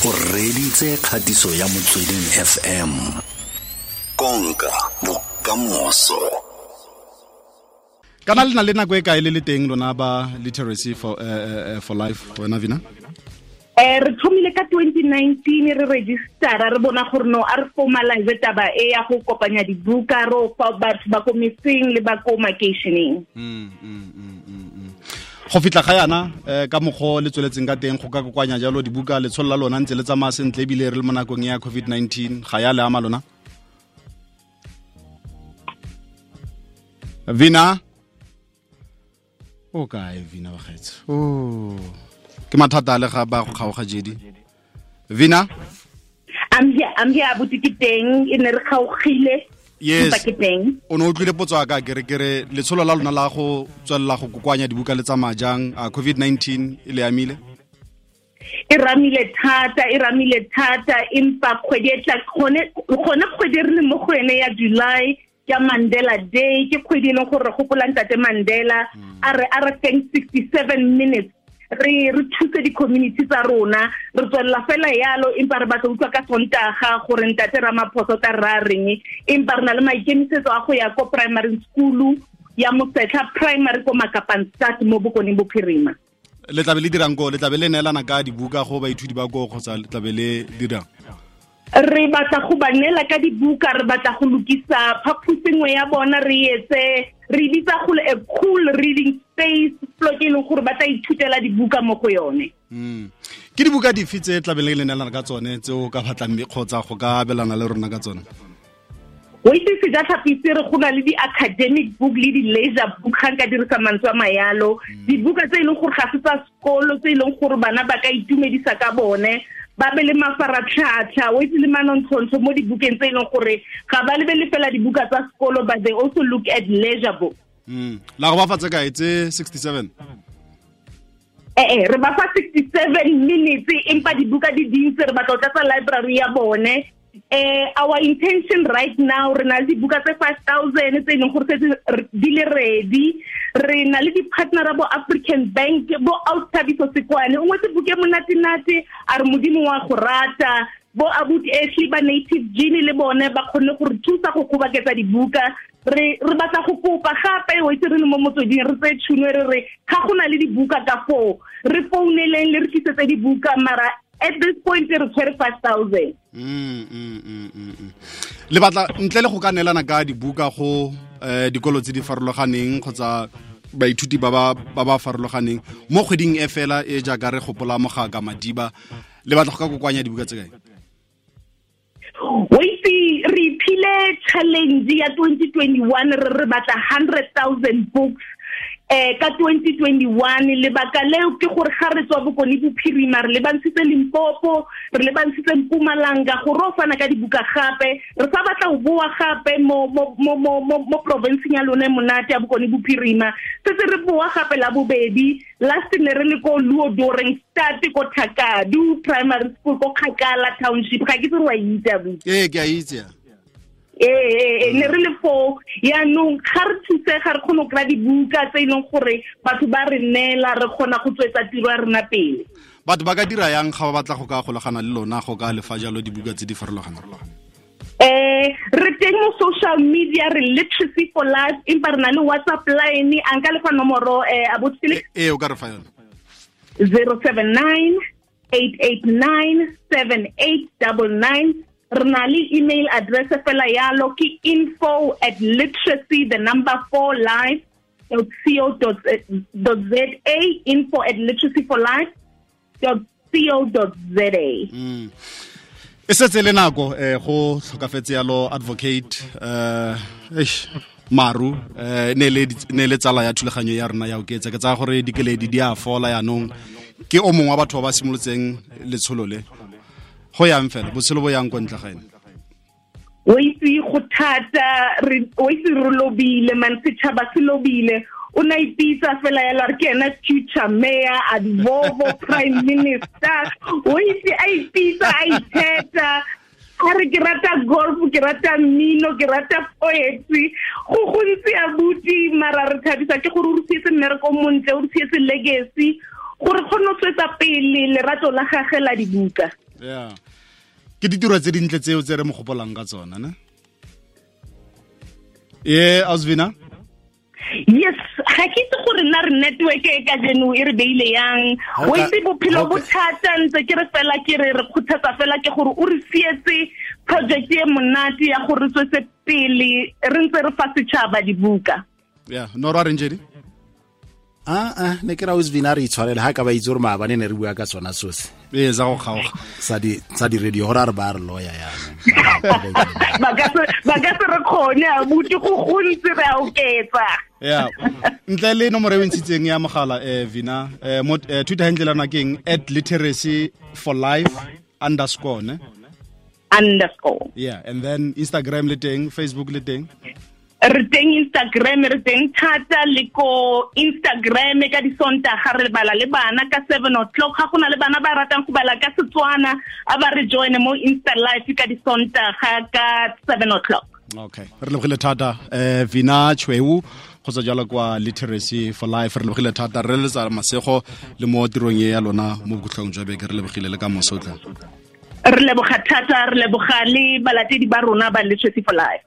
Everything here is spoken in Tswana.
O reditse kgatiso ya Motsweding FM. Konka bokamoso. Kana le na le nako e kae le le teng lona ba Literacy for Life, wena Vina? Re thomile ka 2019 re registera, re bona gore no a re formalize taba e ya go kopanya dibuka ro fa batho ba ko metseng le ba ko makeisheneng. Go fitlha ga yana ka mokgwa le tsweletseng ka teng go ka kokoanya jalo dibuka, letsholo la lona ntse le tsamaya sentle ebile re le mo nakong ya COVID-19, ga ya le ama lona? Vina? O kae Vina wa gaetsho? Oh, ke mathata a le ga ba go kgaoga jedi. Vina? I'm here, abuti ke teng, e ne re kgaogile. Yes. O ne o utlwile potso ya ka, ke re letsholo la lona la go tswelela go kokoanya dibuka le tsamaya jang? A COVID-19 e le amile? E ramile thata, empa kgwedi e tla gone kgwedi re le mo go yone ya July, ke Mandela Day, ke kgwedi e leng gore re gopola ntate Mandela, a re thank 67 minutes re thuse di-community tsa rona, re tswelela fela yalo, empa re batla utlwa ka Sontaga gore ntate Ramaphosa ta ra reng, empa re na le maikemisetso a go ya ko primary school ya Mosetlha Primary ko Makapanstad mo Bokone Bophirima. Le tlabe le dirang ko? Le tlabe le neelana ka dibuka go baithuti ba ko kgotsa le tlabe le dirang? Re batla go ba neela ka dibuka, re batla go lokisa phaposi nngwe ya bona, re etse re bitsa go a cool reading space, plot e leng gore ba tla ithutela dibuka mo go yone. Ke dibuka dife tse tlabe le neelana ka tsone tse o ka batlang kgotsa go ka abelana le rona ka tsone? O itse Sejatlhapi re go na le di-academic book le di-leisure book, ga nka dirisa mantswe a mayalo, dibuka tse e leng gore ga se tsa sekolo, tse e leng gore bana ba ka itumedisa ka bone, ba be le mafaratlhatlha, o itse le manontlhontlho mo dibukeng tse e leng gore ga ba lebele fela dibuka tsa sekolo, but they also look at leisure book. La go ba fa tse kae tse 67? Re ba fa 67 minutes, empa dibuka di dintsi, re batla go tlatsa library ya bone. Our intention right now, re na le dibuka tse 5,000 tse e leng gore setse di le ready. Re na le di-partner bo African Bank, bo Outhabiso Sekwane, o ngwetse buke monate-nate, a re Modimo wa go rata, bo Abuti Ashley ba Native Genie le bone ba kgonne go re thusa go kgoboketsa dibuka. Re batla go kopa gape, o itse re le mo motsweding, re tseye tšhono re re ga go na le dibuka ka foo, re founeleng le re tlisetse dibuka, mara at this point re tshwere 5,000. Le batla ntle le go ka neelana ka dibuka go dikolo tse di farologaneng kgotsa baithuti ba ba farologaneng mo kgweding e fela e jaaka re gopola Mogaka Madiba, le batla go ka kokoanya dibuka tse kae? O itse re iphile challenge ya 2021, re batla 100,000 books ka 2021. Lebaka leo ke gore ga re tswa Bokone Bophirima, re lebantshitse Limpopo, re lebantshitse Mpumalanga, gore o fana ka dibuka gape, re sa batla go boa gape mo provinceng ya lone monate ya Bokone Bophirima. Setse re boa gape la bobedi, last ne re le ko Luodoreng Stad ko Thakadu Primary School ko Kgakala Township, ga ke itse gore wa itse abuti. Ee, ke a itse. Ne re le foo, yaanong ga re thuse, ga re kgone go kry-a dibuka tse e leng gore batho ba re neela, re kgona go tswetsa tiro ya rona pele. Batho ba ka dira yang ga ba batla go ka golagana le lona, go ka lefa jalo dibuka tse di farologaneng? Re teng mo social media, re Literacy for Life, empa re na le WhatsApp line, a nka lefa nomoro abuti Felix? Ee, o ka re fa yone. 079 889 7899. Re na le email address fela yalo, ke info@literacy the number 4 life.co.za, info@literacyforlife.co.za. E setse le nako go tlhokafetse yalo advocate Maru, ne le tsala ya thulaganyo ya rona ya Oketsa. Ke tsaya gore dikeledi di a fola yaanong, ke o mongwe wa batho ba ba simolotseng letsholo le. Go yang fela, botshelo bo yang kwa ntle ga ene. O itse go thata, o itse re lobile, man, setšhaba se lobile. O na ipitsa fela yalo, re ke ena future mayor, advovo, prime minister. O itse a ipitsa, a itheta, a re ke rata golf, ke rata mmino, ke rata poetry. Go gontsi abuti, mara re thabisa ke gore o re sietse mmereko o montle, o re sietse legacy, gore kgone go tswetsa pele lerato la gagwe la dibuka. Yeah, ke ditiro tse dintle tseo tse re mo gopolang ka tsona, ne? E Osvina? Yes, ga ke itse gore nna re network e ka jeno e re beile yang. O itse bophelo bo thata, ntse ke re fela ke re re kgothatsa fela ke gore o re sietse project e monate ya gore re tswetse pele re ntse re fa setšhaba dibuka. Yeah, no ra reng jedi? Ah, ne ke ra Osvina re itshwarele ha ka ba itse gore maabane ne re bua ka tsona sose. Ee, za go kgaoga. Sa di radio gore a re ba re loya yana. Ba ka se re kgone a buti go gontsi re a oketsa. Yeah. Ntle le nomoro e ntshitseng ya mogala Vina, mo Twitter handle lana keng @literacyforlife _ ne? Underscore. Yeah, and then Instagram le teng, Facebook le teng. Re teng Instagram, re teng thata le ko Instagram ka disontaga re bala le bana ka 7 o'clock. Ga gona le bana ba ratang go bala ka Setswana, a ba re join mo Insta Live ka disontaga ka 7 o'clock. Okay, re lebogile thata Vina Chweu go tswa jalo kwa Literacy for Life. Re lebogile thata, re letsa masego le mo tirong e ya lona mo bokhutlong jwa beke. Re lebogile le ka moso tla. Re leboga thata, re leboga le balatedi ba rona ba Literacy for Life.